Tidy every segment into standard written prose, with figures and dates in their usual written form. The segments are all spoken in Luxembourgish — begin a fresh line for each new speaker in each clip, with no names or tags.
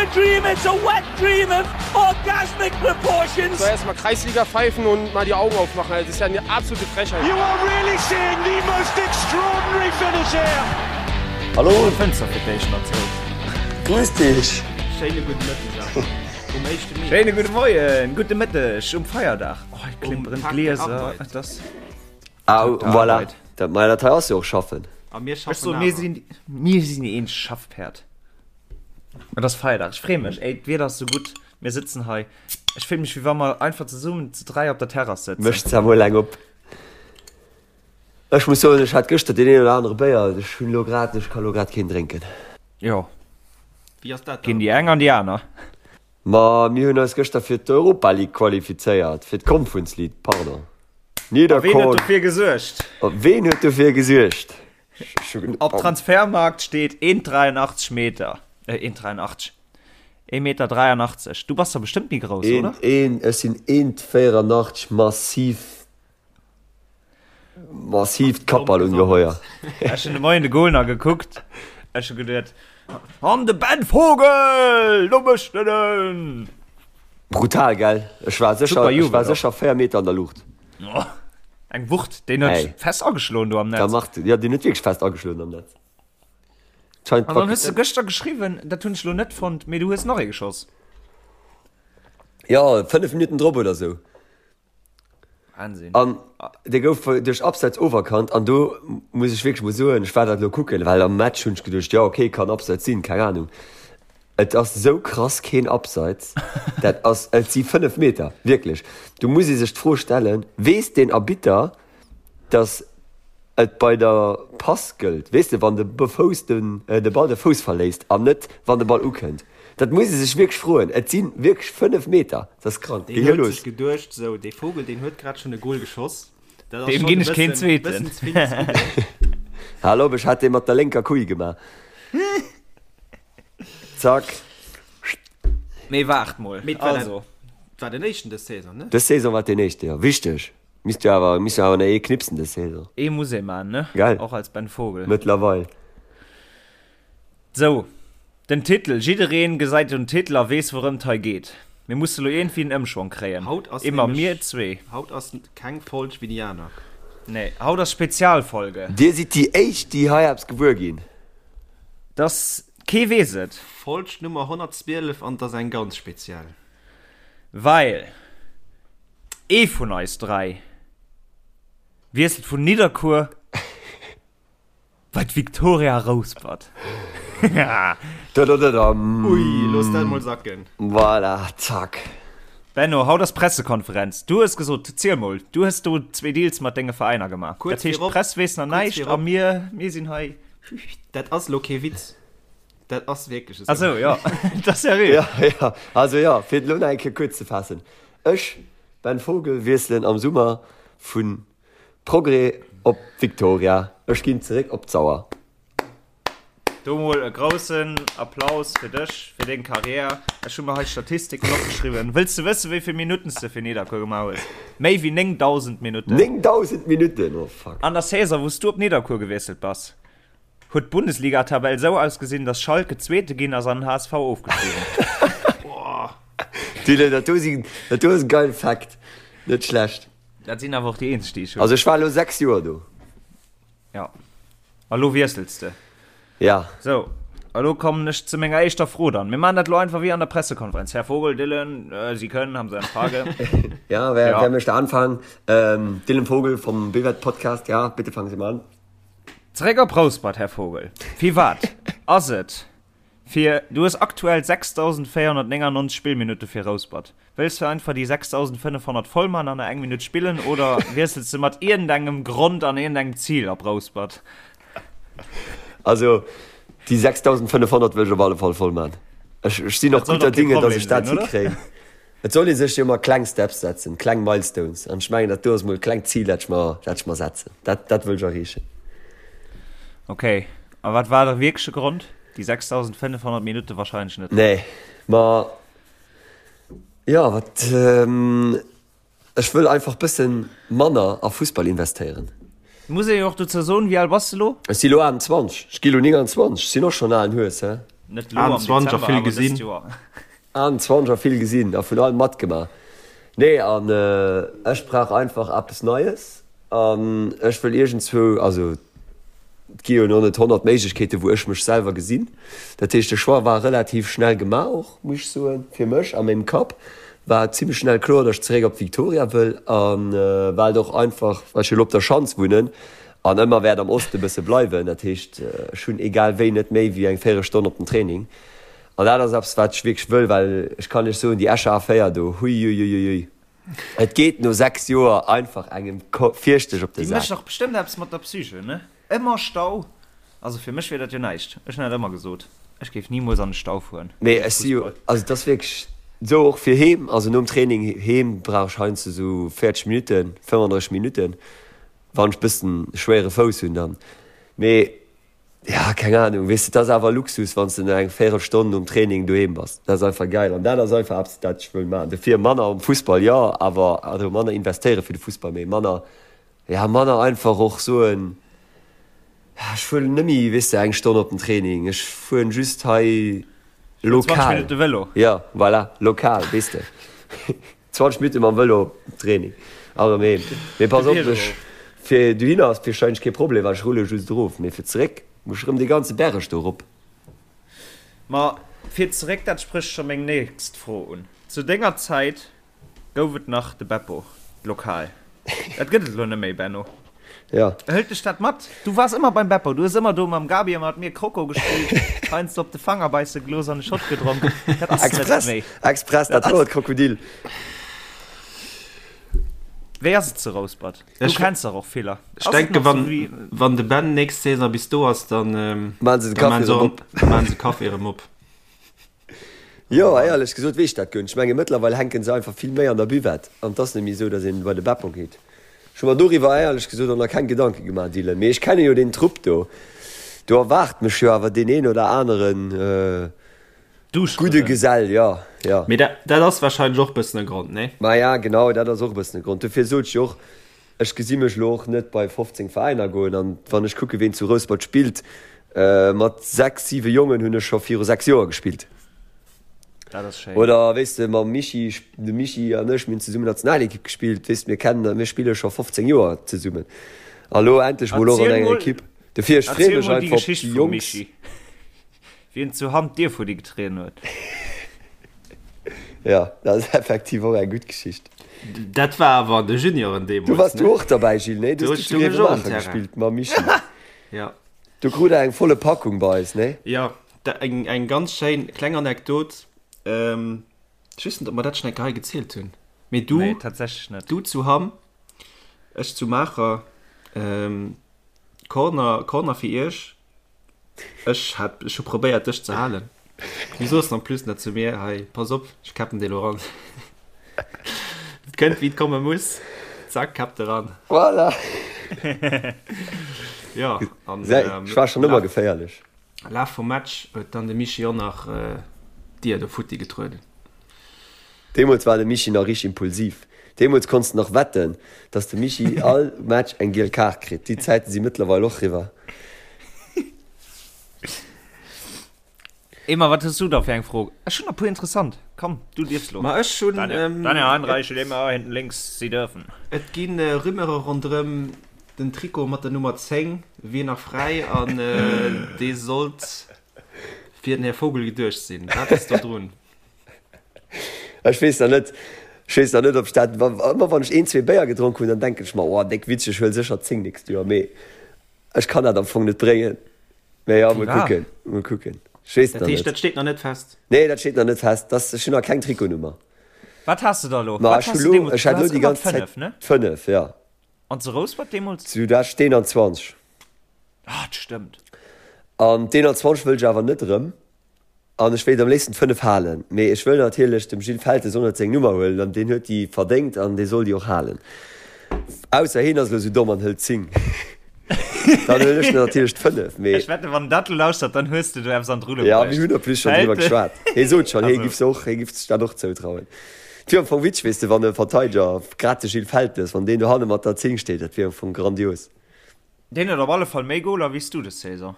a dream, it's a wet dream of orgasmic proportions.
So erstmal Kreisliga pfeifen und mal die Augen aufmachen. Das ist ja eine absolute Frechheit.
You are really seeing the most extraordinary finish here.
Hallo.
Fënster fir d'éischt nach zou.
Grüß dich.
Schéine gudde Mëtteg awer um éischte Mee.
Schéine gudde Moien, gudde Mëtteg um Feierdag. Oh, et
Um
klimperen
Tag der
d'Glieser.
Arbeit.
Et ass
Ah,
Tag der
voilà.
Arbeit.
Dat, ma dat hei ass jo och schaffen.
A mir
Ech
schaffen
soen, mir
awer.
sinn, mir sinn een Schaffpäerd. Et ass Feierdag, ech freeë mech. Ey, d'Wieder ass sou gutt, mir sëtzen hei. Ech fill mech, wéi wa mer einfach zesummen zu 3 op der Terrass sëtzen.
Mécht zwar mol eng op. Ech muss soen, ech hat gëschter deen een oder anere Béier, ech hunn elo grad, ech ka lo grad keen drénken.
Jo,
Wéi ass dat
ginn
dann?
déi eng an déi aner.
Ma mir hunn eis gëschter fir d'Europa League qualifizéiert, fir d'Conference League, pardon.
A ween huet dofir gesuergt?
Ween huet dofir gesuergt?
Op Transfermarkt steet 1,83 Meter. Äh, 1,83. 1,83 Meter. Du bass der bestëmmt méi grouss, oder?
Een, ech sinn 1,84 massiv, massiivt Kappballungeheuer.
Ech hunn de Moien de Goal nach gekuckt. Ech hu geduet, An de Ben Vogel, do mécht en en!
Brutal, gell? Ech war sécher, ech war sécher 4 Meter an der Luucht.
Oh, eng Wucht, deen huet
Ey.
fest ageschloen do am
Da
Netz.
macht, ja, deen huet wierklech fest ageschloen am Netz. Scheint
An dann hues du gëschter geschriwwen, dat hunn ech lo net fonnt, mee du hues nach ee geschoss.
Ja, 5 Minutten drop oder sou.
Wahnsinn.
An dee gouf duerch Abseits oferkannt an do muss ech wierklech mol soen, ech war dat elo kucken, well am Match hunn ech geduecht, jo okay, kann Abseits sinn, keng Ahnung. Et ass sou krass keen Abseits, dat ass, et si 5 Meter, wierklech. Do muss ee sech d'Fro stellen, weess deen Arbitter, datt et bei der Pass gëllt, weess de, wann de Fouss den, de Ball de Fouss verléisst an net wann de Ball ukënnt? Dat muss ee sech wierklech froen. Et si wierklech 5 Meter, dat ass krank.
Deen
Geh
huet
los.
sech geduecht, sou, dee Vogel, deen huet grad schonn e Gol geschoss, dat ass
Deem
schonn
ginn
e
ech keen
bëssen,
zweeten.
bëssen ze vill des Gudden.
Hal op, ech hat dee mat der lénker Kull gemaach. Zack.
Mee waart mol,
Mee et war
also.
dat war den éischten dës Saison, ne?
Dës Saison war et deen éischte, jo. Wichteg. Misst jo awer, misst jo awer nach ee knipsen dës Saison.
Ee muss ee man, ne?
Gell?
Och als Ben Vogel.
Mëttlerweil.
Sou, den Titel, jiddereen gesäit den Titel a weess wourëmt hei geet. Mir musse lo iergendwéi en Ëmschwong kréien.
Haut ass
Immer
nämlech,
mir zwee.
haut ass keng Folg wéi déi aner.
Nee, haut ass Spezialfolge.
Dir sidd déi éischt, déi hei eppes gewuer ginn.
Dass, kee weess et.
Folg Nummer 112 an 't ass eng ganz speziell.
Well ee vun eis 3 wiesselt vun Nidderkuer bei d'Victoria Rouspert.
Dadadadam.
Ui, looss dat mol sacken.
Voilà, zack.
Benno, haut ass Pressekonferenz. Du hues gesot, ziel mol, du hues do zwee Deals mat denge Veräiner gemaach.
Kuerz
Dat heescht,
virop,
d'Press weess nach
kuerz
näischt a
virop.
mir, mir sinn hei.
Dat ass lo kee Witz. Dat ass wierklech esou.
Ach sou, jo, dat ass seriö.
Ja, ja, also jo, fir et elo nach eng Kéier kuerz ze faassen, Ech, Ben Vogel, wiesselen am Summer vu Progrès op Victoria. Ech ginn zeréck op d'Sauer.
Do mol e groussen Applaus fir dech, fir deng Karriär. Ech hu mer hei Statistiken opgeschriwwen. Wëlls de wëssen, wéi vill Minutten s de fir Nidderkuer gemaach hues? Méi wéi 9.000 Minutten.
9.000 Minutten? Oh fuck.
An der Saison, wou s du op Nidderkuer gewiesselt bass, huet d'Bundesligatabell esou ausgesinn, dass Schalke Zweete ginn ass an den HSV ofgestigen.
Dylan, dat do sinn, dat do ass e geile Fact. Net schlecht.
Dat sinn awer och déi eenzeg, déi ech hunn.
Also ech war elo 6 Joer do.
Ja. A lo wiessels de.
Ja.
Sou, a lo kommen ech zu menger éischter Fro dann. Mir maachen dat lo einfach wéi an der Pressekonferenz. Här Vogel, Dylan, Sie können, haben Sie eine Frage?
Ja, wer,
Ja.
wer möchte anfangen? Ähm, Dylan Vogel vom Bewert Podcast, ja, bitte fangen Sie mal an.
Zeréck op Rouspert, Här Vogel. Firwat ass et fir, du hues aktuell 6.499 Spillminutte fir Rouspert. Wëlls du einfach déi 6.500 voll man an eng Minutt spillen oder wiessels de mat iergendengem Grond an iergendengem Zil op Rouspert?
Also déi 6.500 wëll ech op alle Fall voll man. Ech, ech sinn och
Dat soll
gutter
doch kee
Dinge, dass
Problem
ech dat
sinn, oder?
hikréien. Et soll ee sech jo ëmmer kleng Steps setzen, kleng Milestones. An ech mengen, dat do ass mol e klengt Zil, dat ech mer, dat ech mer setzen. Dat, dat wëll ech erreechen.
Ok, a wat war de wierkleche Grond? Déi 6.500 Minutte wahrscheinlech net.
Nee, ma jo, wat, ech wëll einfach bëssen manner a Fussball investéieren.
Muss ee jo och dozou soen, wéi al bass de lo?
Ech si lo 28, ech gi lo 29, ech sinn och schonn alen Hues, he.
Net lo am
21 a
Dezember,
vill
awer dëst
gesinn.
Joer.
21 a vill gesinn a vun allem matgemaach. Nee, an ech brauch einfach eppes Neies an ech wëll iergendzwou, also et gi jo elo net 100 Méiglechkeeten, wou ech mech selwer gesinn. Dat heescht, de Choix war relativ schnell gemaach och, muss ech soen, fir mech a mengem Kapp war et zimmlech schnell kloer, datt ech zeréck op d'Victoria wëll a well et och einfach, well ech jo elo op der Schanz wunnen an ëmmer wäert am Oste bësse bleiwen. Dat heescht, ech hunn egal wéi net méi wéi eng Véierelstonn op den Training an dat ass eppes, wat ech wierklech wëll, well ech kann iech soen, déi Escher A4 do, huiuiuiui. Et geet no 6 Joer einfach engem fierchteg op de
Déi
Sak.
mécht dach bestëmmt eppes mat der Psyche, ne? Ëmmer Stau. Also fir mech wier dat jo näischt. Ech hunn dat ëmmer gesot, ech géif nimools an de Stau fueren
Mee
wéinst
ech si jo,
Fussball.
also et ass wierklech esou, och fir heem, also nom Training heem brauch ech heiansdo esou 40 Minutten, 35 Minutten, wann ech bëssen schwéiere Fouss hunn dann. Mee Ja, keng Ahnung, weess de, et ass awer Luxus, wann s de no eng Véierelstonn nom Training doheem bass. Dat ass einfach geil an dat ass einfach eppes, dat ech wëll maachen. Dofir manner um Fussball, jo, awer also manner investéiere fir de Fussball, mee manner, ja, manner einfach och soen, ja, ech fueren net méi, weess de, eng Stonn op den Training, ech fueren just hei
20
lokal.
Minutte Vëlo.
Jo, voilà, lokal, weess de. 20 Minutte mam Vëlo op Training a rëm heem. Mee pass op, ech, fir dohinner ass warscheinlech kee Problem, well ech rulle just erof. Mee fir zeréck muss ech rëm dee ganze Berg do erop.
Ma fir zeréck, dat sprécht scho meng nächst Fro un. Zu denger Zäit gouf et nach de Beppo, d'Lokal. Dat gëtt et elo net méi, Benno.
Ja.
Hëlt dech dat mat? Du waars ëmmer beim Beppo, du hues ëmmer do mam Gabi a mat mir Croco gespillt, heiansdo op de Fanger beisse gelooss an e Shot gedronk. Dat ass net
Express,
méi.
express, dat wor et Krokodil.
Wéi ass et zu Rouspert? Du
Ech-
kenns dach och viller.
Ech
Ass et
denke
nach sou
wann,
wéi.
wann de Ben nächst Saison bis do ass, dann, ähm,
Maan se de
dann
Café
maan se
erëm
och,
op.
maan se Café erëm op.
Jo, éierlech gesot weess ech dat guer net. Ech menge mëttlerweil hänke se einfach vill méi an der Buvette an et ass net méi esou, datt een bei de Beppo geet. Ech hu mer doriwwer éierlech gesot och nach keng Gedanke gemaach, Dylan. Mee ech kenne jo deen Trupp do. Do erwaart mech jo awer deen een oder aneren gudde Gesell, jo, jo.
Mee dat, dat ass warscheinlech och bëssen e Grond, nee?
Maja, genau, dat ass och e bëssen e Grond. Dofir sot ech jo och, Ech gesi mech elo och net bei 15 Veräiner goen. An wann ech kucke ween zu Rouspert spillt, mat 6, 7 Jongen hunn ech scho viru 6 Joer gespillt.
Dat ass schéin.
Oder weess de, mam Michi, de Michi an ech, mir hunn zesummen Nationalekipp gespillt, weess de, mir kennen, mir spille scho 15 Joer zesummen. A lo endlech mol och an enger Ekipp. Dofir, ech freeë
Erziel
mech
mol déi
einfach op
Geschicht
déi
vum
Jongs.
Michi, wéi en zu Hamm d'Dier futti getrieden huet.
Jo, dat ass effektiv och eng gutt Geschicht.
Dat war awer an de Junioren
Du
deemools,
waars du
ne?
och derbäi, Gilles, nee? Du
Do
hues du zu
stoung ech och um
Grevenmacher
Terrain.
gespillt mam Michi.
Ja.
Du krut der eng volle Packung bei eis, nee?
Jo, da eng, eng ganz schéin kleng Anekdot. Ech weess net, ob mer dat schonn eng Kéier hei gezielt hunn, mee du,
Nee, tatsächlech net.
du zu Hamm, ech zu Maacher, Corner, Corner fir iech. Ech hat, ech hu probéiert dech ze halen. Du soos en plus nach zu mir, hei pass op, ech käppen dee lo ran. Et kënnt wéi et komme muss, zack, käppt e ran.
Voilà.
Jo, an
Ech war schonn ëmmer geféierlech.
Laf vum Match huet dann de Michi och nach d'Dier do futti getrueden.
Deemools war de Michi nach richteg impulsiv. Deemools konns de nach wetten, dass de Michi all Match eng giel Kaart kritt. Déi Zäite si mëttlerweil och riwwer.
Emma, wat hues du da fir eng Fro? Ech hunn der puer interessant. Komm, du dierfs lo.
Ma ech hunn,
Daniel Heidenreich, Emma hinten links, Sie dürfen.
Et gi Rumeure ronderëm den Trikot mat der Nummer 10 wier nach fräi an dee sollt fir den Här Vogel geduecht sinn. Wat ass do drun?
Ech weess nach net, ech weess nach net, ob ech dat, ëmmer wann ech een, zwee Béier gedronk hunn, dann denken ech mer, oh, déck witzeg, ech huel sécher 10 nächst Joer, mee ech kann dat am Fong net bréngen. Mee jo, mol kucken, mol kucken. Ech weess et
Dat
nach
heescht,
net.
dat steet nach net fest?
Nee, dat steet nach net fest. Das, ech hunn nach keng Trikotnummer.
Wat has de da elo?
Ma
Wat
ech hu
has de
lo,
deemools?
ech hat
Du
lo
has
déi
ëmmer
ganz Zäit
d'5, ne?
d'5, jo.
An zu Rouspert deemools?
Zu dat d'21.
Ah, dat stëmmt.
An d'21 wëll ech awer net erëm. An ech wéilt am léifsten d'5 halen, mee ech wëll natierlech dem Gilles Feltes och net seng Nummer huelen, an deen huet déi verdéngt an dee soll déi och halen. Ausser heen ass elo sou domm an hëlt d'10. Dann huelen ech natierlech d'5, mee.
Ech wetten, wann en dat elo lauschtert, dann hues de do eppes an d'Rulle
Ja, mir
bruecht.
hunn en plus schonn driwwer
Feltes.
geschwat. Hee sot schonn, hee
Also.
giff se och, hee giff sech dat och zoutrauen. Et wier am Fong witzeg, weess de, wann e Verteideger, grad de Gilles Feltes, wann deen dohanne mat der 10 steet, dat wier am Fong grandios.
Deen huet op alle Fall méi Goler wéi s du des Saison.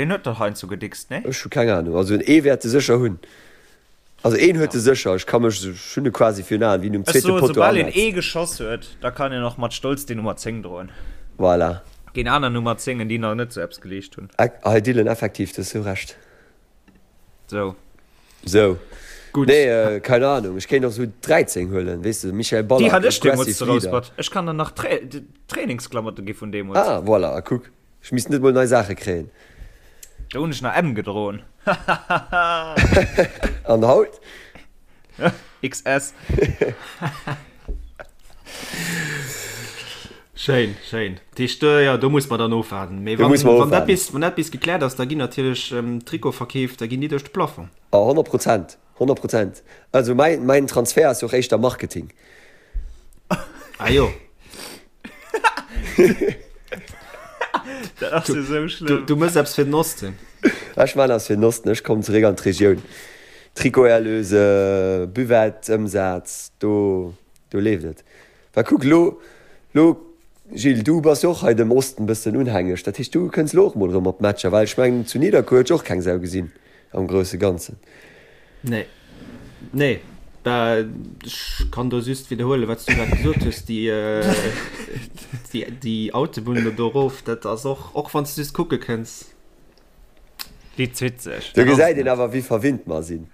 Deen huet dach heiansdo gedickst, nee?
Ech hu keng Ahnung. Also ee wäert e sécher hunn. Also een huet e sécher. Ech ka mech, ech hunn e quasi virun Aen, wéi en um
Ech
zweete
soen,
Potto
soubal een
anetzt.
ee geschoss huet, da kann een och mat Stolz déi Nummer 10 droen.
Voilà.
Géint aner Nummer 10en, déi nach net sou eppes geleescht hunn.
Hei Dylan, effektiv, du hues sou Recht.
Sou.
Sou.
Gutt.
Nee, keine Ahnung. Ech kéint och sou 13 huelen, weess de, Michael
Déi
Ballack,
hat ech deemools
aggressive
zu
Leader.
Rouspert. Ech kann der nach Trainingsklamotte gi vun deemools.
Ah, voilà, a kuck. Ech misst net mol nei Saache kréien.
Do hunn ech nach M gedroen.
An haut?
XS.
Schéin, schéin. Dat heescht, jo, do muss mer dann ofwaarden. Mee
Do muss mer
wann dat
ofwaarden.
bis, wann dat bis gekläert ass, da ginn natierlech Trikotverkeef, da ginn déi duerch de Plafond.
A 100 Prozent, 100 Prozent. Also mäin, mäin Transfert ass jo och éischter Marketing.
Ah jo.
Dat ass jo sou schlëmm.
Du mëss eppes fir den Osten.
Ech man eppes fir den Osten, ech kommen zeréck an d'Regioun. Trikoterlöse, Buvette, Ëmsaz, do, do leeft et. Well kuck, lo, lo, Gilles, du bass jo och hei dem Osten bëssen unhängeg, dat heescht, du kënns lo och mol erëm op d'Matcher, well ech mengen, zu Nidderkuer huet jo och keng Sau gesinn am grousse Ganzen.
Nee. Nee. Bah, ech kann do just widderhuelen, wat s du grad gesot hues, déi, déi, déi Autobunn do erof, dat ass och, och wann s du just kucke kënns.
Déi zitt sech.
Do gesäit een awer, wéi verwinnt mer sinn.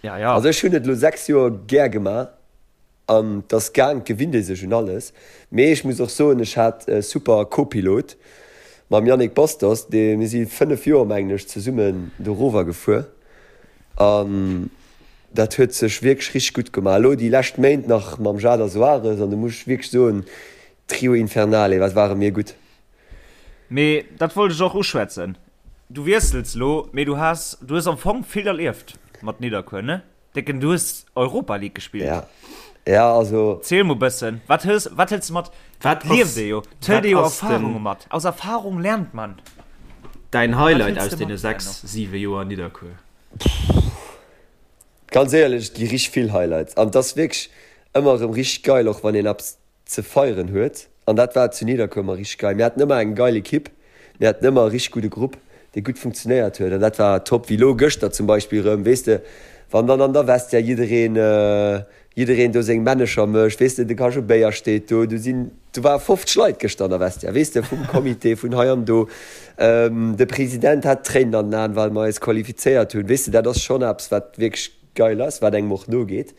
Ja, ja.
Also ech hunn et elo 6 Joer gär gemaach. An 't ass gaang, 't gewinnt ee sech un alles. Mee ech muss och soen, ech hat e super Co-Pilot mam Yannick Bastos, dee, mir si 5 Joer, mengen ech, zesummen dorower gefuer an dat huet sech wierklech richteg gutt gemaach. Elo déi lescht Méint nach mam Jader Soares an do muss ech wierklech soen, Trio Infernale, wat ware mir gutt.
Mee dat wollt ech och uschwätzen. Du wiessels elo, mee du has, du hues am Fong vill erlieft mat Nidderkuer, ne? Décken, du hues Europa League gespillt.
Ja, ja, also.
Ziel mol bëssen, wat hues, wat hëls de mat?
Wat
Lieft
ass,
ee jo, 't hëlt
wat
ee jo
ass
Erfahrunge
denn
mat. Aus Erfahrung lernt man.
däin
Wat
Highlight
hëls
aus
de
deene
mat,
6,
Benno?
7 Joer Nidderkuer?
Ganz éierlech, et gi richteg vill Highlights an 't ass wierklech ëmmer erëm richteg geil, och wann een eppes ze feieren huet an dat war zu Nidderkuer ëmmer richteg geil. Mir haten ëmmer eng geil Ekipp, mir haten ëmmer e richteg gudde Grupp, dee gutt funktionéiert huet an dat war top. Wéi elo gëschter zum Beispill erëm, weess de, wann dann an der Vestiaire jiddereen, jiddereen do seng Männecher mécht, weess de, de Cajot Béier steet do, do sinn, do ware 50 Leit gëschter an der Vestiaire, weess de, vum Comité, vun hei an do. De President hat Tréinen an den Aen, well mer eis qualifizéiert hunn, weess de, dat ass schonn eppes, wat wierklech geil ass, wat engem och nogeet.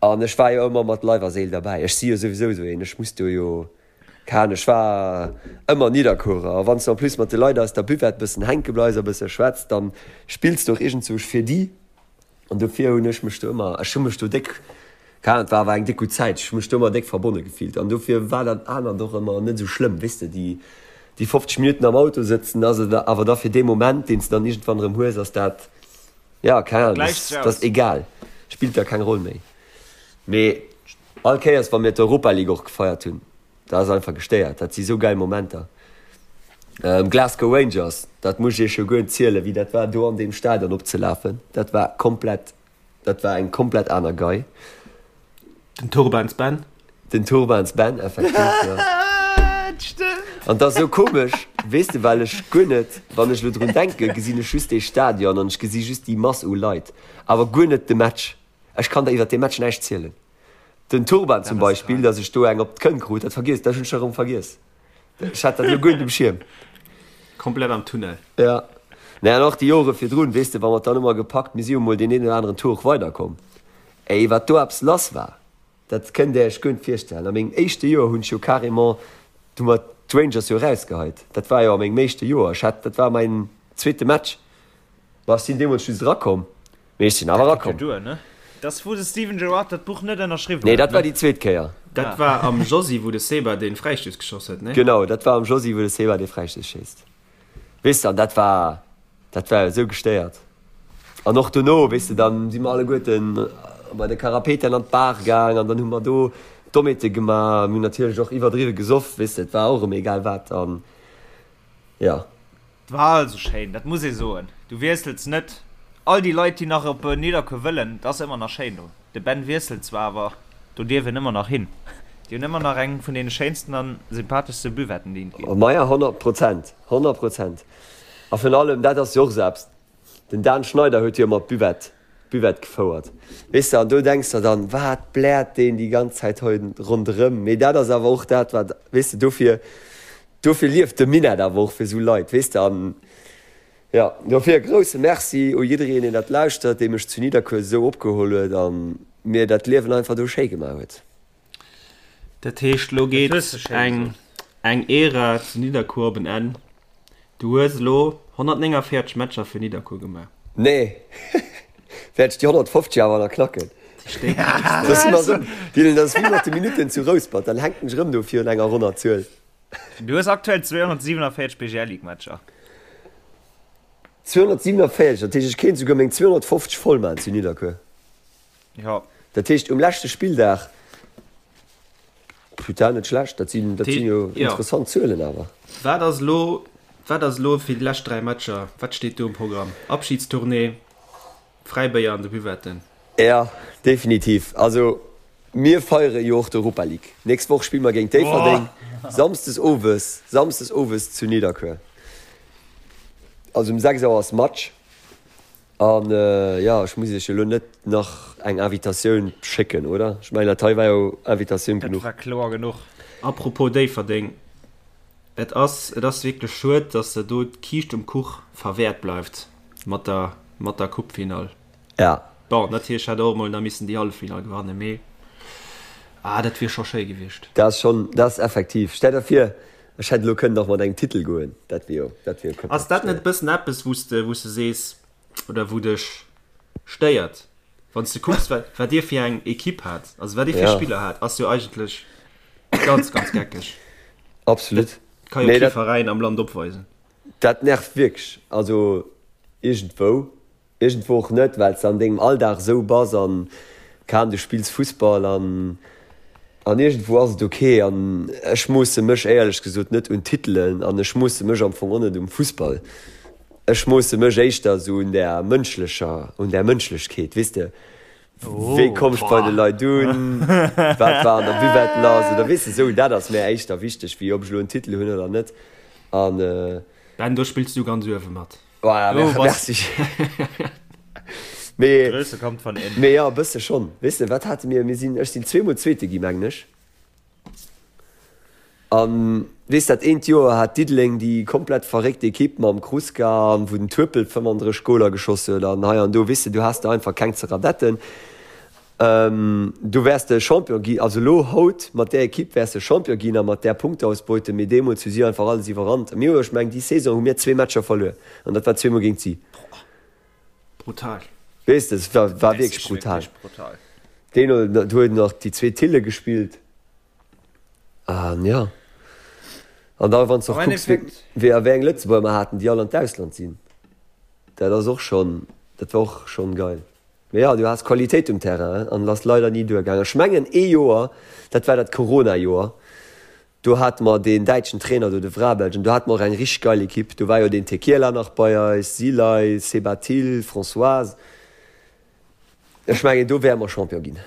An ech war jo ëmmer mat Leif a Séil derbäi. Ech si jo souwisou esou een, ech muss do jo, keng Ahnung, ech war ëmmer Nidderkuerer. A wann s de en plus mat de Leit aus der Buvette bëssen hänke bleifs a bësse schwätz, dann spills de och iergendzwousch fir déi. An dofir hunn ech mech do ëmmer, ech hu mech do déck, keng Ahnung, et war awer eng déck gutt Zäit, ech hu mech do ëmmer déck verbonne gefillt. An dofir war dat anert och ëmmer net esou schlëmm, weess de, déi, déi 50 Minutten am Auto sëtzen, ass et awer da fir dee Moment, deen s de dann iergendwann erëm hues, ass dat, Ja, keng Ahnung,
Gläicht sech
das
aus.
ass egal, spillt da keng Roll méi. Mee all Kéiers wa mir d'Europa League och gefeiert hunn, dat ass einfach gestéiert, dat si sou geil Momenter. Glasgow Rangers, dat muss ech iech jo guer net zielen, wéi dat war do an deem Stadion opzelafen, dat war komplett, dat war eng komplett aner Gei.
Den Turbans Ben.
Den Turbans Ben, effektiv, jo.
Stëmmt.
An 't ass esou komesch, weess de, well ech guer net, wann ech elo drun denken, gesinn ech just dee Stadion an ech gesi just déi Mass u Leit, awer guer net de Match. Ech kann der iwwer dee Match näischt zielen. Den Turban zum Beispill, datt ech do eng op d'Kënn krut, dat vergiess, dat hunn ech erëm vergiess. Ech hat dat elo guer net um Schierm.
Komplett am Tunnel.
Ja. Nee, an och déi Jore virdrun, weess de, wa mer et dann ëmmer gepackt, mir si jo mol deen een oder aneren Tour och weiderkomm. Ey, wat do eppes lass war, dat kënnt Där Iech guer net virstellen. A mengem éischte Joer hunn ech jo carrément, hu mer d'Rangers jo erausgeheit. Dat war jo a mengem éischte Joer. Ech hat, dat war mäin zweete Match. Ma ech sinn deemools just erakomm, mee ech sinn awer
Dat geet jo
erakomm.
duer, ne? Dat ass wou de Steven Gerrard dat Buch net ënnerschriwwen
Nee,
huet,
dat war
ne?
déi zweet Kéier.
Dat war am Josy, wou de Seba dee Fräistouss geschoss huet, ne?
Genau, dat war am Josy, wou de Seba dee Fräistouss schéisst. Weess de, an dat war, dat war jo esou gestéiert. An och dono, weess de, dann si mer alleguerten bei de Karapetian an d'Bar gaang an dann hu mer do Dommheete gemaach. Mir hunn natierlech och iwwerdriwwe gesoff, weess de, et war och erëm egal wat an jo.
Et war also schéin, dat muss ee soen. Du wiessels net. All déi Leit, déi nach op Nidderkuer wëllen, et ass ëmmer nach schéin do. De Ben wiesselt zwar, awer do dierf een ëmmer nach hin. Déi hunn ëmmer nach eng vun deene schéinsten an sympatheschste Buvetten, déi et ginn.
Maja, 100 Prozent, 100 Prozent. A virun allem, dat ass jo och esou eppes, den Dan Schneider huet jo ëmmer d'Buvette, d'Buvette gefouert, weess de, an do denks de dann, wat bläert deen déi ganz Zäit hei ronderëm? Mee dat ass awer och dat, wat, weess de, dofir, dofir lieft de Minett awer och, fir esou Leit, weess de, an jo, dofir e grousse Merci u jiddereen, deen dat lauschtert, dee mech zu Nidderkuer esou opgeholl huet a mir dat Liewen einfach do schéi gemaach huet.
Dat heescht, lo geet eng eng Ära zu Nidderkuer op en Enn. Du hues elo 149 Matcher fir Nidderkuer gemaach.
Nee, wäert ech déi 150 awer nach knacken. Dat ass wéi mat de Minutten zu Rouspert, dann hänken ech erëm do virun enger ronner Zuel.
Du hues aktuell 247 BGL-Ligue-Matcher.
247, dat heescht ech kéint esouguer meng 250 voll maachen zu Nidderkuer.
Jo.
Dat heescht um leschte Spilldag, putain, net schlecht, dat sinn, dat sinn jo interessant Zuelen awer.
Wat ass elo, wat ass elo fir déi lescht 3 Matcher, wat steet do um Programm? Abschiedstournée, Fräibéier an de Buvetten?
Ja, definitiv. Also mir feiere jo och d'Europa League. Nächst Woch spille mer géint Déifferdeng, samsdes owes, samsdes owes zu Nidderkuer. Also um 6 Auer ass Match. An jo, ech muss iech jo elo net nach eng Invitatioun schécken, oder? Ech mengen, dat hei war jo Invitatioun
genuch. Dat war kloer genuch.
Apropos Déifferdeng, et ass, et ass wierklech schued, dass der do d'Kiischt um Kuch verwäert bleift mat der, mat der Coupefinall.
Ja.
Bon, natierlech hätt der och emol nach missen déi Halleffinall gewannen, mee ah, dat wier scho schéi gewiescht.
Dat ass schonn, dat ass effektiv. Stell der vir, ech hätt elo kënnen nach mat engem Titel goen, dat wier jo, dat wier jo
komplett Ass dat net e bëssen eppes, wou s de, wou s de sees, oder wou dech stéiert, wann s de kucks, wat, wat dir fir eng Ekipp hat, also wat dir fir Spiller hat, ass jo eigentlech ganz, ganz geckeg.
Absolut.
Dat ka jo kee Veräin am Land opweisen.
Dat nervt wierklech, also iergendwou. Iergendwou och net, well s de an dengem Alldag esou bass an kaum du spills Fussball an an iergendwou ass et ok. An ech moosse mech éierlech gesot net un Titelen an ech moosse mech am Fong och net um Fussball. Ech moosse mech éischter esou un där mënschlecher, un där Mënschlechkeet, weess de, wéi komm ech bei de Leit un, wat war an der Buvette lass oder weess de esou. Dat ass mär éischter wichteg, wéi ob ech elo en Titel hunn oder net. An.
Ben, do spills du ganz uewe mat.
Voilà, oh, merci. Mee, Größe kommt von innen. Mee ja, e bësse schonn. Weess de, wat hate mir? Mir sinn, ech sinn zweemol Zweete gi, mengen ech. An weess, dat eent Joer hat Diddeleng déi komplett verréckt Ekipp mam Kruska an wou den Turpel 35 Goler geschoss huet an hei an do, weess de, du has der einfach keng ze radetten. Du wäers de Champion gi, also elo haut mat där Ekipp wäers de Champion ginn a mat där Punkteausbeute, mee deemools hu si einfach alles iwwerrannt. Mir hu, ech mengen déi Saison hu mir zwee Matcher verluer an dat war zweemol géint si.
Brutal.
Weess de, et war, war wierklech brutal. Deen huet nach déi zwee Tille gespillt an jo. An da wann s de och kucks, wéi a wéi eng Lëtzebuerger mer haten, déi all an d'Ausland sinn, dat ass och schonn, dat war och schonn geil. Mee jo, du has Qualitéit um Terrain an et ass leider ni duergaangen. Ech mengen ee Joer, dat war dat Corona-Joer, do hate mer deen däitschen Trainer do, de Vrabelj, an do hate mer och eng richteg geil Ekipp. Do war jo deen Tekiela nach bei eis, Silay, Sebatil, Françoise. Ech mengen do wäre mer Champion ginn.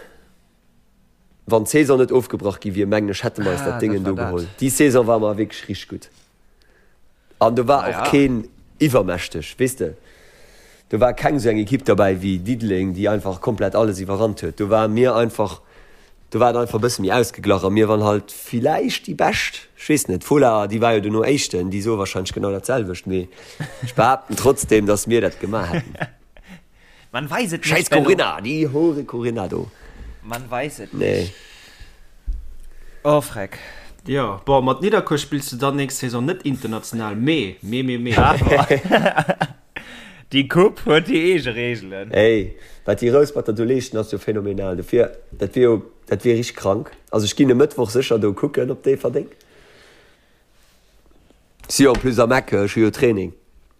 Wann d'Saison net ofgebrach gi wier, mengen ech, hätte mer eis dat Déngen do geholl. Déi Saison war mer wierklech richteg gutt. An do war och keen iwwermächteg, weess de. Do war keng esou eng Ekipp derbäi wéi Diddeleng, déi einfach komplett alles iwwerrannt huet. Do ware mir einfach, do war et einfach e bësse méi ausgeglach a mir waren halt villäicht déi Bescht. Ech weess net, d'Fola, déi war jo dono Éischten, déi soe warscheinlech genau dat selwecht, mee ech behaapten trotzdeem, datt mir dat gemaach hätten.
Man weiß et
nicht. Scheiß Corinna, déi Hure Corinna do.
Man weiß et nicht. Oh freck.
Jo, bon, mat Nidderkuer spills du dann nächst Saison net international, mee, mee, mee, mee.
Déi Coupe huet hir eege Reegelen.
Ey, wat déi Rousperter do leeschten ass jo phänomenal. Dofir, dat wier jo, dat wier richteg krank. Also ech ginn e Mëttwoch sécher do kucken op Déifferdeng. Si jo en plus am Eck, ech hu jo Training.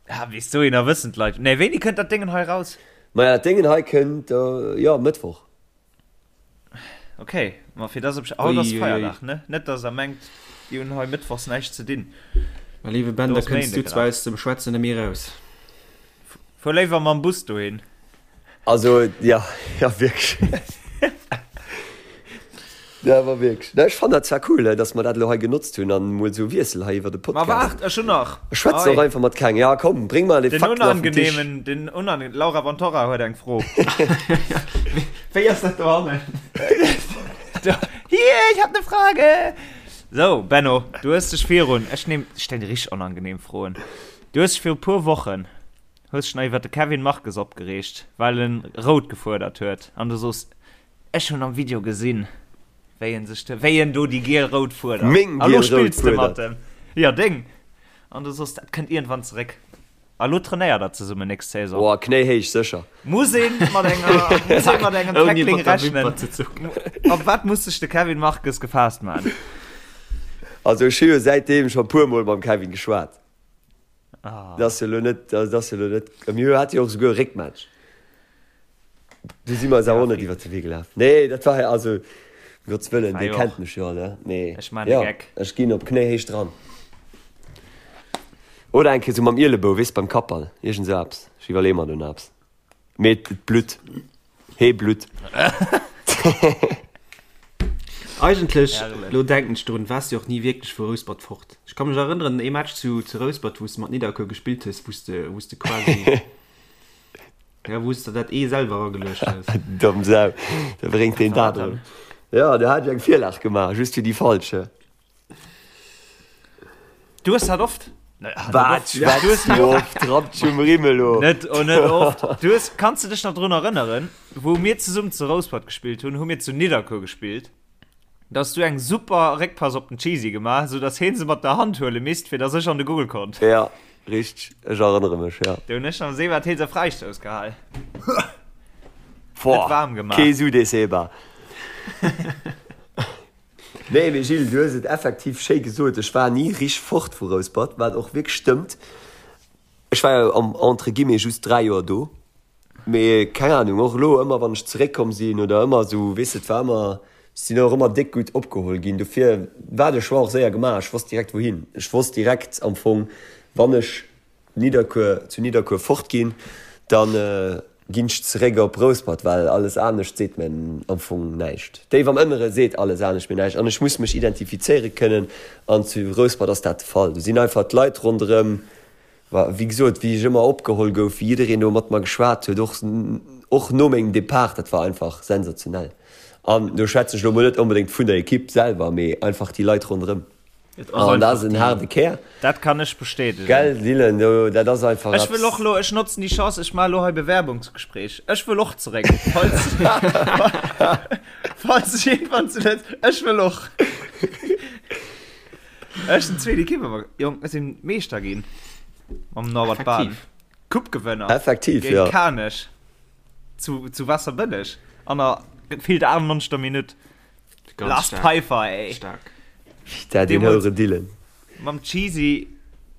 Ah, bis dohinner wëssen d'Leit. Nee, wéini kënnt dat Déngen hei raus?
Maja, dat Déngen hei kënnt, jo, Mëttwoch.
Ok, ma fir dass op haut ass Feierdag, ne? Net dass der mengt, déi hunn hei mëttwochs näischt ze dinn.
Mä léiwe Ben, da kënns du zwar aus dem Schwätzen net méi eraus.
Fuer léiwer mam Bus dohin.
Also, jo, jo, wierklech. Ja, awer wierklech. Ech fannen dat zwar cool, dass mer dat elo hei genotzt hunn an emol esou Wiessel hei iwwer de
Podcast. Ma waart, ech hunn nach.
Ech schwätzen och einfach mat kengem. Ja, komm, bréng mer déi Fakten
auf den Tisch. Den unangenehmen, den unangenehmen, d'Laura Vantorra huet eng Fro.
Wéi ass dat dohannen?
Hier, ich hab ne Frage! Sou, Benno, du hues dech virun, ech nehm, ech stellen dir richteg onangenehm Froen. Du hues dech viru puer Wochen, hues dech nach iwwer de Kevin Marques opgereegt, well en rout gefuerdert huet an du soos, Ech hunn am Video gesinn, wéi en sech, wéi en do déi giel-rout fuerdert.
Meng
A lo
giel-rout
spills de mat
fuerdert.
em. Jo, deng. An du soos, dat kënnt iergendwann zeréck. A lo trainéiert der zesummen nächst Saison.
Boah, knéihéich sécher.
Muss een mat enger, muss een mat engem
Ouni
Tackling
mat der
rechnen?
Wimper ze zucken.
Op wat muss sech de Kevin Marques gefaasst man?
Also ech hu jo säitdeem scho puer mol mam Kevin geschwat.
Ah.
Dat ass jo lo net, dat ass jo lo net, mir hate jo och souguer e Réckmatch. Du si mer eis awer och net iwwer de Wee gelaf. Nee, dat war also, um Gottes Wëllen,
War
dee
jo
kennt
och.
mech jo, ne? Mee
Ech man e
jo,
Geck.
ech ginn op Knéihéicht dran. Oder eng Kéier sou mam Ielebou, weess, beim Kappball, iergend sou eppes. Ech iwwerleeë mer do nach eppes. Mee et blutt. Hee
blutt. Eigentlech, lo denken ech drun, waars de och ni wierklech vu Rouspert fort. Ech ka mech erënneren, ee Match zu Rouspert, wou s de mat Nidderkuer gespillt hues, wou s de, wou s de quasi, ja, wou s de dat Ee selwer erageluecht hues.
Domm Sau, da bréngt deen dat erëm. Jo, do hat ech eng Virlag gemaach, just fir déi falsch.
Du hues dat oft.
Wat schwätz du oft? Rapp dech um Rimm elo.
Net, oh, net oft. Du hues, kanns du dech nach drun erënneren, wou mir zesummen zu Rouspert gespillt hunn, hu mir zu Nidderkuer gespillt. Da hues du eng super Réckpass op den Cheesy gemaach, sou dass heen se mat der Hand huele misst, fir dass ech an de Goal konnt.
Ja, richteg. Ech erënnere mech, ja.
Do hunn ech am Seebad Heelser Fräistouss gehal.
Boah,
Net waarm gemaach.
Kee Su dee Seba. Nee, mee Gilles, du hues et effektiv schéi gesot. Ech war ni richteg fort vu Rouspert, wat och wierklech stëmmt. Ech war jo am entre guillemets just 3 Joer do, mee keng Ahnung, och elo ëmmer wann ech zeréckkomm sinn oder ëmmer esou, weess de, et war ëmmer, ech sinn och ëmmer déck gutt opgeholl ginn. Dofir war de Choix och séier gemaach, ech wosst direkt wouhin. Ech wosst direkt am Fong, wann ech Nidderkuer, zu Nidderkuer fort ginn, dann ginn ech zeréck op Rouspert, well alles anescht seet mir am Fong näischt. Déif am Ënnere seet alles anescht mir näischt an ech muss mech identifizéiere kënnen an zu Rouspert ass dat de Fall. Do sinn einfach d'Leit ronderëm, wéi gesot, wéi ech ëmmer opgeholl gouf, wéi jiddereen do mat mer geschwat huet, och och no mengem Depart, dat war einfach sensationell. An do schwätzen ech elo mol net onbedéngt vun der Ekipp selwer, mee einfach déi Leit ronderëm.
Et ass
An dat
einfach
ass en
déi.
haarde Kär.
Dat kann ech bestätegen.
Gell, Dylan, do, dat ass einfach
Ech wëll
eppes.
och elo, ech notzen déi Chance, ech maache elo hei Bewerbungsgespräch. Ech wëll och zeréck, falls, falls ech iergendwann zu Lëtz, ech wëll och. Ech sinn zweet Ekipp, awer Jong, ech sinn Meeschter ginn mam Norbert Bahn.
Effektiv.
Coupe-Gewënner
Effektiv,
géint
jo.
Kanech zu, zu Waasserbëlleg an der gefillt 98. Minutt.
Ganz
Lars
stark.
Pfeiffer, ey.
Stark.
Da, den
Deemools-
houere Dylan.
Mam Cheesy,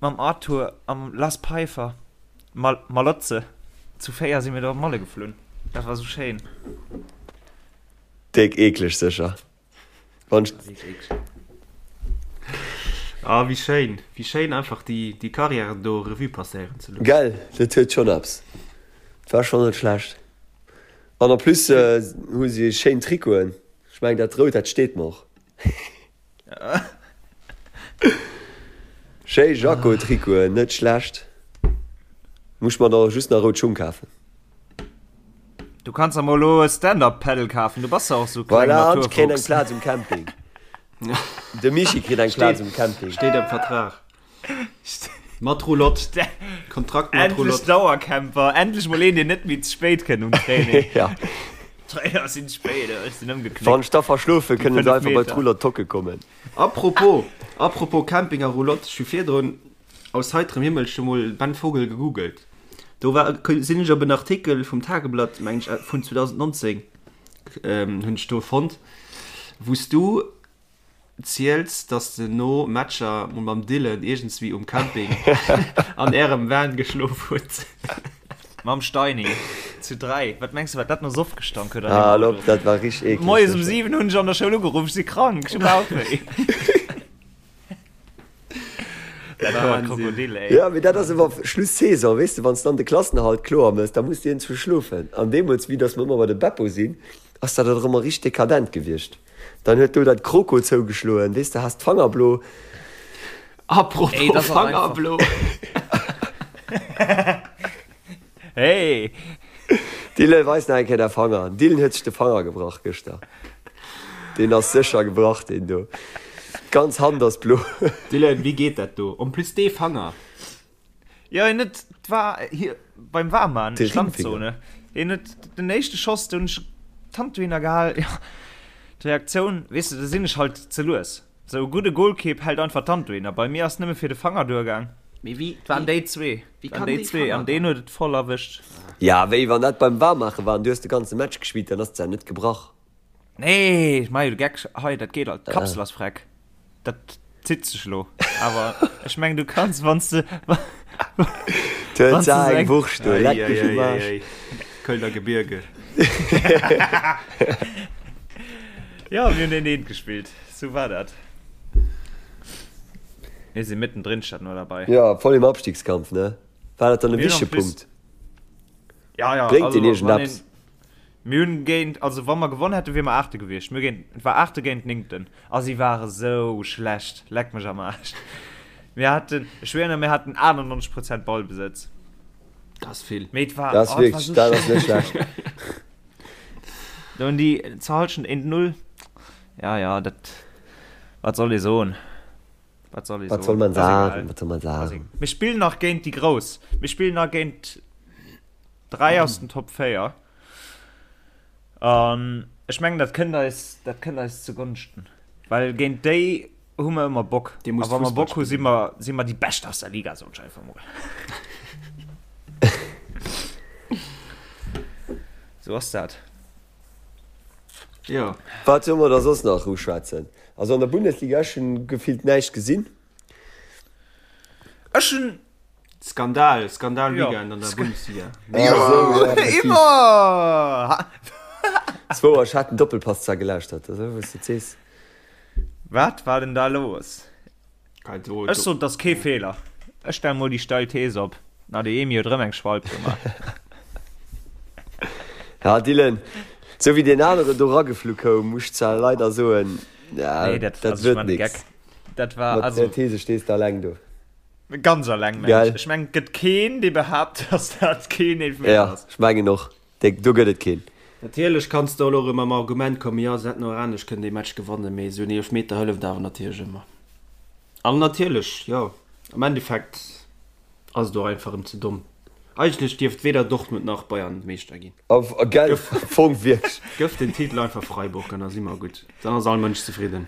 mam Arthur a mam Lars Pfeiffer. Mal Malotze. Zu 4 si mir do op Malle geflunn. Dat war sou schéin.
Déck eekleg sécher. Wann ech.
Ah, wéi schéin. Wéi schéin einfach déi, déi Carrière do Revue passéieren ze loossen.
Gell, dat huet schonn eppes. Dat war schonn net schlecht. An en plus hu si schéin Trikoten. Ech mengen dat rout dat steet mer och. Schéi Jako Trikoten, net schlecht. Muss mer der just nach rout Schung kafen.
Du kanns der mol elo e Stand-up Paddle kafen, du bass jo och sou kleng
Voilà, an ech kréien eng
Naturfuchs.
Plaz um Camping. De Michi kritt eng Plaz um Camping.
Steet am Vertrag. Mat Roulotte. Kontrakt mat
Endlech
Roulotte.
Dauercamper, endlech mol een, deen net méi ze spéit kënnt um Training.
Ja.
Trainer sinn spéit, ech sinn ëmgeknickt.
Wann ech da verschlofe, kënnen se
5
einfach bei
Meter.
d'Roulotte hocke kommen.
Apropos, apropos Camping a Roulotte, ech hu virdrun aus heiterem Himmel scho mol Ben Vogel gegoogelt. Do war, sinn ech op en Artikel vum Tageblatt, meng ech, vun 2019, hunn ech do fonnt, wou s du ziels, dass de no Matcher mol mam Dylan iergendswéi um Camping an ärem Van geschlof hutt.
Mam Steini. Zu 3. Wat mengs de, wat dat no Soff gestank huet an deem
Ah,
Auto?
lopp, dat war richteg eekleg.
Moies um 7 hunn ech an der Schoul ugeruff, ech si krank, ech hu Bauchwéi. Dat war e Krokodil, ey.
Ja, mee dat ass ëmmer Schluss-Saison, weess de, wann s de dann de Klassenerhalt kloer mëss, da muss de iergendswou schlofen. An deemools, vue dass mer ëmmer bei de Beppo sinn, ass dat och ëmmer richteg dekadent gewiescht. Dann huet do dat Kroko zougeschloen, weess de, has d'Fangerblo.
Apropos Fangerblo.
Hey!
Dylan, weis nach eng Kéier däi Fanger. Dylan huet sech de Fanger gebrach gëschter. Deen ass sécher gebrach, deen do. D'ganz Hand ass blo.
Dylan, wéi geet dat do? En plus dee Fanger.
Jo, hien huet, war hie beim Waarman,
De Ringfinger.
Standzone. Hien huet den éischte Schoss, do hunn ech d'Hand dohinner gehal. Jo, d'Reaktioun, weess de, da sinn ech halt ze lues. Sou e gudde Golkipp hält einfach d'Hand dohinner. Bei mir ass nëmme fir de Fanger duergaang.
Mee wéi,
Et waren déi zwee.
wéi
Et waren
kann
déi
dee
zwee
Fanger
an deen
dann?
huet et voll erwëscht.
Ja, wéi wann dat beim Waarmaache war an du hues de ganze Match gespillt, dann ass d'Sa net gebrach.
Nee, ech maache jo de Geck hei, dat geet alt. D'Kapsel ass freck. Dat zitt sech elo. Awer ech mengen, du kanns, wann s de.
D'huet Sa eng Wurscht do, leck mech um Aarsch.
Kölner Gebirge.
Jo, mir hunn een eent gespillt. Sou war dat. Mir si mittendrin statt nur dabei.
Jo, voll im Abstiegskampf, ne? War dat dann e
Mir hunn
wichtege
en plus.
Punkt?
Ja, ja,
Bréngt
also
deen
wann
iergendeppes?
een. Mir hunn géint, also wa mer gewonn hätten, wier mer Aachte gewiescht. Mir géint, et war Aachte géint Néngten a si ware sou schlecht, leck mech am Aarsch. Mir haten, ech schwéieren, mir haten 98 Prozent Ballbesëtz.
Dat ass vill.
Mee et war,
Dat ass
oh, et war
wierklech,
sou
dat ass net
schlecht.
schlecht.
Do hunn déi zur Hallschent 1-0. Ja, ja, dat, wat soll ee soen? Wat soll ee
Wat soll
soen?
man
Ass egal.
sagen? Wat soll man
Ass
sagen?
Mir spillen nach géint déi Grouss. Mir spillen nach géint 3 aus den Top 4. An ech mengen, dat kënnt eis, dat kënnt eis zu Gonschten. Well géint déi hu mer ëmmer Bock.
Dir
A
musst
wa mer
Fussball
Bock hu, si
spillen.
mer, si mer déi Bescht aus der Liga, soen ech einfach mol. Sou ass dat.
Jo.
Wat solle mer da soss nach uschwätzen? Also an der Bundesliga, ech hunn gefillt näischt gesinn.
Ech hunn
Skandal, Skandal
Ja.
Weekend an der Bundesliga.
Immer!
Zwou, ech hat den Doppelpass zwar gelauschtert, also wou s de sees.
Wat war denn da los?
Kein do,
Ech sot, dat ass kee Feeler. Ech stelle mol déi steil Thees op. Na, de Emi huet erëm eng Schwalb gemaach.
Ja, Dylan, sou wéi deen aneren do rageflu koum, muss ech zwar leider soen, ja,
Nee, dat,
dat
also, ech
wërt
man de
nix.
Geck. Dat war,
Mat
also.
der These stees de alleng do.
Ganz alleng, mengen
Gell?
ech. Ech mengen, et gëtt keen, dee behaapt, dass dat keen Eelefmeter
Ja,
ass.
ech mengen och. Dee, do gëtt et keen.
Natierlech kanns de elo erëm mam Argument kommen, jo, se hätten och anescht kënnen dee Match gewannen, mee esou en Eelefmeter hëlleft awer natierlech ëmmer. An natierlech, jo, am Endeffekt ass et och einfach erëm ze domm. Eigentlech dierft weder Dortmund nach Bayern Meeschter ginn.
A, gell, am Fong wierklech.
Gëff den Titel einfach Freiburg an da si mer gutt. Dann ass all Mënsch zefridden.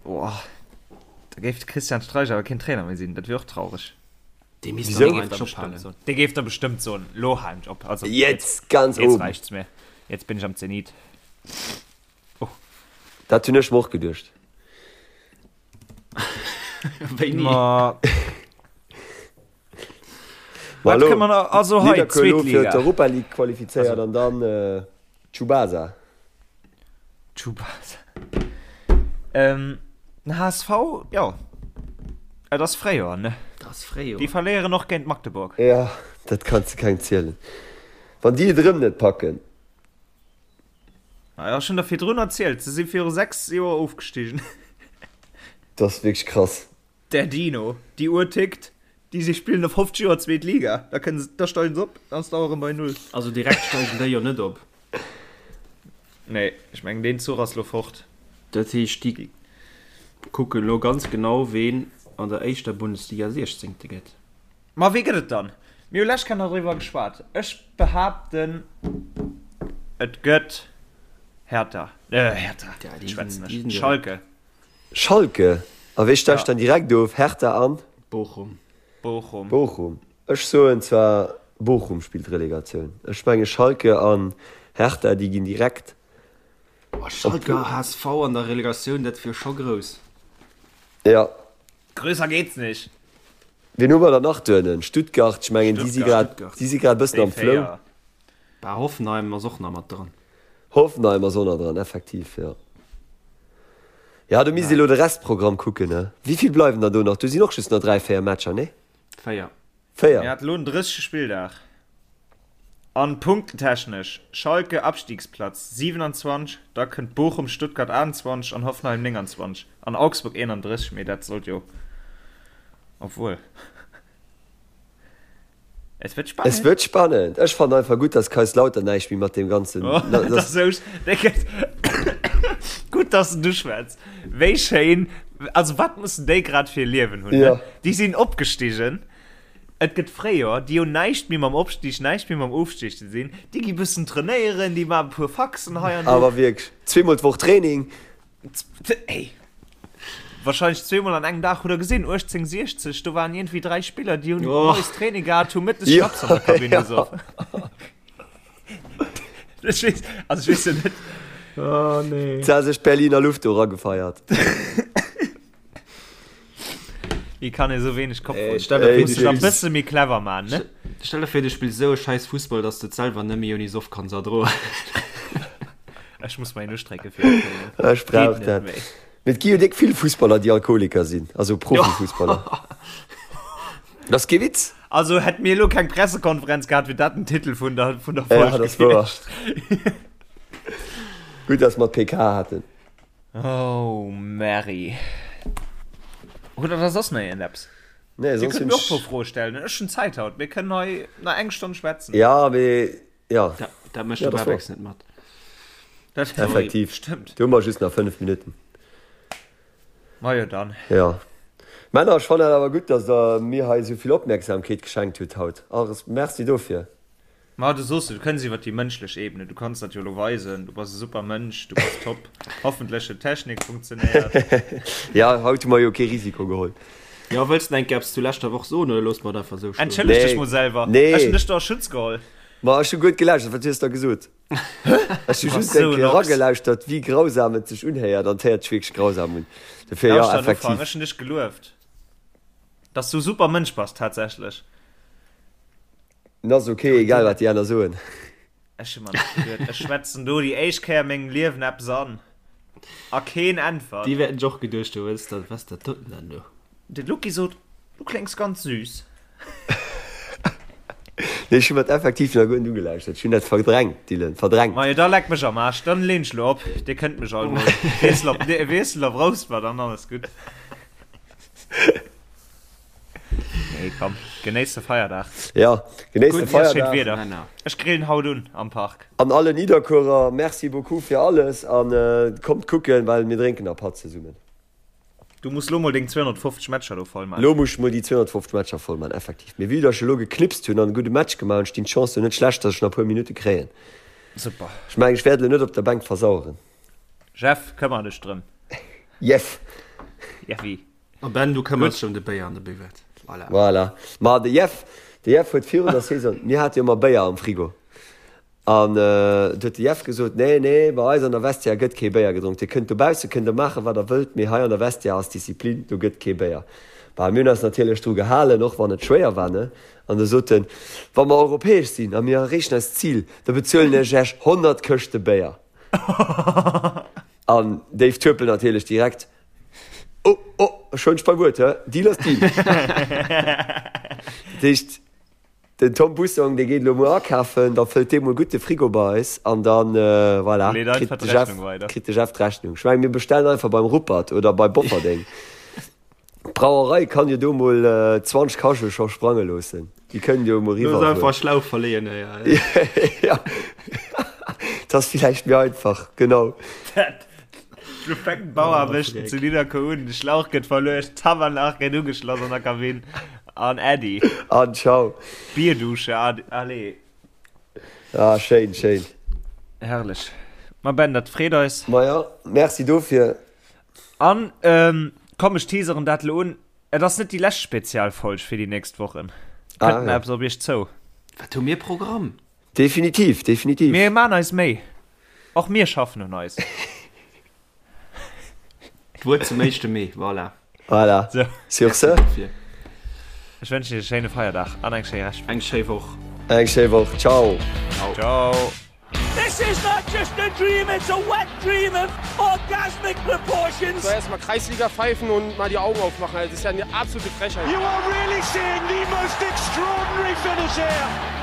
Boah, da géif de Christian Streich awer keen Trainer méi sinn, dat wier och traureg.
Dee misst
Wieso?
dann och einen Job halen.
Dee géif da bestëmmt soen, lo halen ech op. Also,
Jetzt ganz
jetzt
oben.
reicht's mir. Jetzt bin ich am Zenit.
Dat hunn ech mer och geduecht.
Wéini?
Ma,
Ma
wat
elo,
kënne mer nach, also hei,
Nidderkuer elo
zweet
fir
Liga.
d'Europa League qualifizéiert an dann Tsubasa.
Tsubasa. Ähm, den HSV, jo, et ass Fréijoer, ne?
Et ass Fréijoer.
Déi verléieren och géint Magdeburg.
Ja, dat kanns de kengem zielen. Wann déi et erëm net packen.
Ah jo, ech hunn der virdrun erzielt, se si viru 6 Joer ofgestigen.
Dat ass wierklech krass.
Der Dino, déi Uhr tickt, déi si spillen no 50 Joer zweet Liga, da kënnen se, da steigen se op, dann ass d'Auer erëm bei Null.
Also direkt steigen déi jo net op.
Nee, ech mengen deen Zuch ass lo fort.
Dat heescht déi kucken lo ganz genau ween an der éischter Bundesliga Siechzéngte gëtt.
Ma wee gëtt et dann? Mir hu lescht Kéier nach driwwer geschwat. Ech behaapten et gëtt Hertha, äh Hertha,
Ja, déi
schwätzen
sinn, déi
ech,
sinn direkt.
Schalke.
Schalke, a wee steigt
Ja.
dann direkt of? Hertha an?
Bochum.
Bochum.
Bochum. Ech soen zwar Bochum spillt Relegatioun. Ech menge Schalke an Hertha déi ginn direkt
Oh,
op.
Schalke a HSV an der Relegatioun, dat wier scho grouss.
Ja.
Grösser geht's nicht.
Wien hu mer dann nach duernen? Stuttgart, ech mengen déi si
Stuttgart.
grad, déi si grad e bëssen
Déi
am Flow.
4.
Bah, Hoffenheim ass och nach mat dran.
Hoffenheim ass och nach dran, effektiv, jo. Ja, do misst ee lo de Restprogramm kucken, ne? Wéi vill bleiwen der do nach? Do sinn och just nach 3, 4 Matcher, ne?
4.
4.
Mir hat lo den 30. Spilldag. An punktetechnesch, Schalke Abstiegsplatz 27, da kënnt Bochum, Stuttgart 28 an Hoffenheim 29 an Augsburg 31, mee dat sollt jo, obwuel, et wërt
Es
spannend.
wërt spannend. Ech fannen einfach gutt, dass Kaiserslautern näischt méi mat deem ganzen,
Oh, dat
dass,
ass esou, dee gëtt, gutt, dass du schwätz. Wéi schéin, also wat mussen déi grad fir e Liewen hunn, ne?
ja.
Déi sinn opgestigen. Et gëtt Fréijoer, déi hunn näischt méi mam Opstig, näischt méi mam Ofstig ze dinn. Déi gi bëssen trainéieren, déi maachen e puer Faxen hei an do.
Awer wierklech, zweemol d'Woch Training.
Ey, wahrscheinlech zweemol an engem Dag. Hutt der gesinn, 1860, do waren iergendwéi 3 Spiller, déi hunn moies Training gehat, hu mëttes Schnaps an der Kabinn gesoff. Ech weess, also ech weess jo net.
Oh nee.
Se ha sech d'Berliner Luft do eragefeiert.
Wéi kann ee sou wéineg Kopf
Ey,
hunn?
stell der vir,
Muss
du
sech e
spills,
bësse méi clever man, ne?
stell der vir, du spills esou e scheiß Fussball, dass du et selwer net méi ouni Soff kanns erdroen.
Ech muss mer een ustrécke fir de Köln.
Ech
Geet
brauch
net
dat.
méi.
Mee et gi jo déck vill Fussballer, déi Alkoholiker sinn, also Profifussballer. Dat ass kee Witz.
Also hätt mir elo keng Pressekonferenz gehat, wier dat den Titel vun der, vun der
Ja,
Folg
dat ass wouer.
gewiescht.
Gutt, dass mer d'PK haten.
Oh Mary. Hutt der da soss nach iergendeppes?
Nee,
Dir
soss
kënnt
hunn
mir och e puer
ech.
Froe stellen. Ech hunn Zäit haut. Mir kënnen hei nach eng Stonn schwätzen.
Ja, mee ja.
Dat, dat mécht
Ja,
de
dat ass wouer.
Babex net mat.
Dat
Effektiv.
stëmmt.
Do hu mer just nach 5 Minutten.
Majo dann.
Ja. Männer, ech fannen et awer gutt, dass der mir hei esou vill Opmierksamkeet geschenkt hutt haut. Alles Merci dofir.
Ma du soos, du kënns iwwer déi mënschlech Ebene, du kanns dat jo elo weisen, du bass e super Mënsch, du bass top, hoffentlech huet d'Technik funktionéiert.
Ja, haut hu mer jo kee Risiko geholl.
Jo, wëlls de enke eppes zu leschter Woch soen oder loosse mer et einfach esou stoen?
Entschëlleg dech
Nee,
mol selwer,
nee.
ech hunn dech do a Schutz geholl.
Ma ech hu guer net gelauschtert, wat hues der gesot? Ech hu
Du bass
just eng
esou en
Kéier
Ochs.
eragelauschtert, wéi grausam et sech unhéiert, an et héiert sech wierklech grausam un. Dofir, jo,
Lauschter an Ufank,
effektiv.
ech hunn dech gelueft, dass du e super Mënsch bass, tatsächlech.
En ass ok, egal wat déi aner soen.
Ech hu mer nach geduet, ech schwätzen do déi éischt Kéier a mengem Liewen eppes an a keen äntwert.
Déi wäerten sech och geduecht hunn, wat ass dat, wat ass dat doten dann do?
De Lucky sot, du kléngs ganz süß.
Nee, ech hu mer et effektiv nach guer net ugelauschtert. Ech hunn dat verdrängt, Dylan, verdrängt.
Majo, da leck mech am Aarsch, dann leen ech lo op. Dir kënnt mech all mol. Wiessel op, wiessel op Rouspert an alles gutt. Nee, komm, genéisst de Feierdag.
Ja, genéisst de
Feierdag.
Wieder.
Ech grillen haut un am Park.
An alle Nidderkuerer, merci beaucoup fir alles an kommt kucken, well mir drénken a Patt zesummen.
Du muss lo mol deng 250 Matcher do voll man.
Lo muss ech mol déi 250 Matcher voll man, effektiv. Mee vue dass ech elo geknipst hunn an e gudde Match gemaach hunn, stinn d'Chancen net schlecht, dass ech nach e puer Minutte kréien.
Super.
Ech mengen, ech wäert elo net op der Bänk versaueren.
Jeff, këmmer dech drëm.
Jeff.
Jeffi.
A Ben, du këmmers dech ëm de Béier an de Buvette. Voilà.
Voilà. Ma de Jeff, de Jeff huet virun der Saison, mir hate jo ëmmer Béier am Frigo, an du huet de Jeff gesot, nee, nee, bei eis an der Vestiaire gëtt kee Béier gedronk. Dir kënnt dobausse kënnt der maachen, wat der wëllt, mee hei an der Vestiaire ass Disziplin, do gëtt kee Béier. Bah, mir hunn eis natierlech dru gehalen, och wann et schwéier war, ne? An da sot en, wa mer europäesch sinn a mir erreechen eist Zil, da bezuelen ech Iech 100 Këschte Béier. An Dave Turpel natierlech direkt, Oh, oh, ech huelen dech beim Wuert, hä? Deal ass Deal. Dat heescht, den Tom Bussong, dee geet elo muer akafen, da fëllt dee mol gutt de Frigo bei eis an dann, voilà,
Leet einfach
kritt de Jeff,
d'Rechnung weider.
kritt de Jeff d'Rechnung. Ech mengen, mir bestellen einfach beim Ruppert oder bei Bofferdeng. D'Brauerei kann jo do mol 20 Kachele scho sprange loossen. Déi kënnen jo mol
Looss
eriwwer
einfach
fueren.
Schlauch verleeën, hei.
Ja, dat ass villäicht méi einfach, genau.
Dat Lo fänken d'Bauaarbechten zu Nidderkuer un, de Schlauch gëtt verluecht, d'Tabernach gëtt ugeschloss an der Kabinn an Äddi.
An ciao.
Bierdusche, allez.
Ah, schéin, schéin.
Herrlech. Ma Ben, dat freet eis.
Maja, merci dofir.
An, komm, ech teaseren dat elo un, et ass net déi lescht Spezialfolg fir déi nächst Wochen. Kënnt nach eppes op iech zou.
Wat hu mir Programm?
Definitiv, definitiv.
Mir maan eis Méi. Och mir schaffen un eis.
D'Wuert zum éischte Mee, voilà.
Voilà.
So.
Sur ce.
Ech wënschen iech e schéine Feierdag an eng schéi Reschtwoch.
Eng schéi Woch.
Eng schéi Woch. Ciao.
Ciao.
This is not just a dream, it's a wet dream of orgasmic proportions.
So erstmal Kreisliga pfeifen und mal die Augen aufmachen. Also, das ist ja eine absolute Frechheit.
You are really seeing the most extraordinary finish here.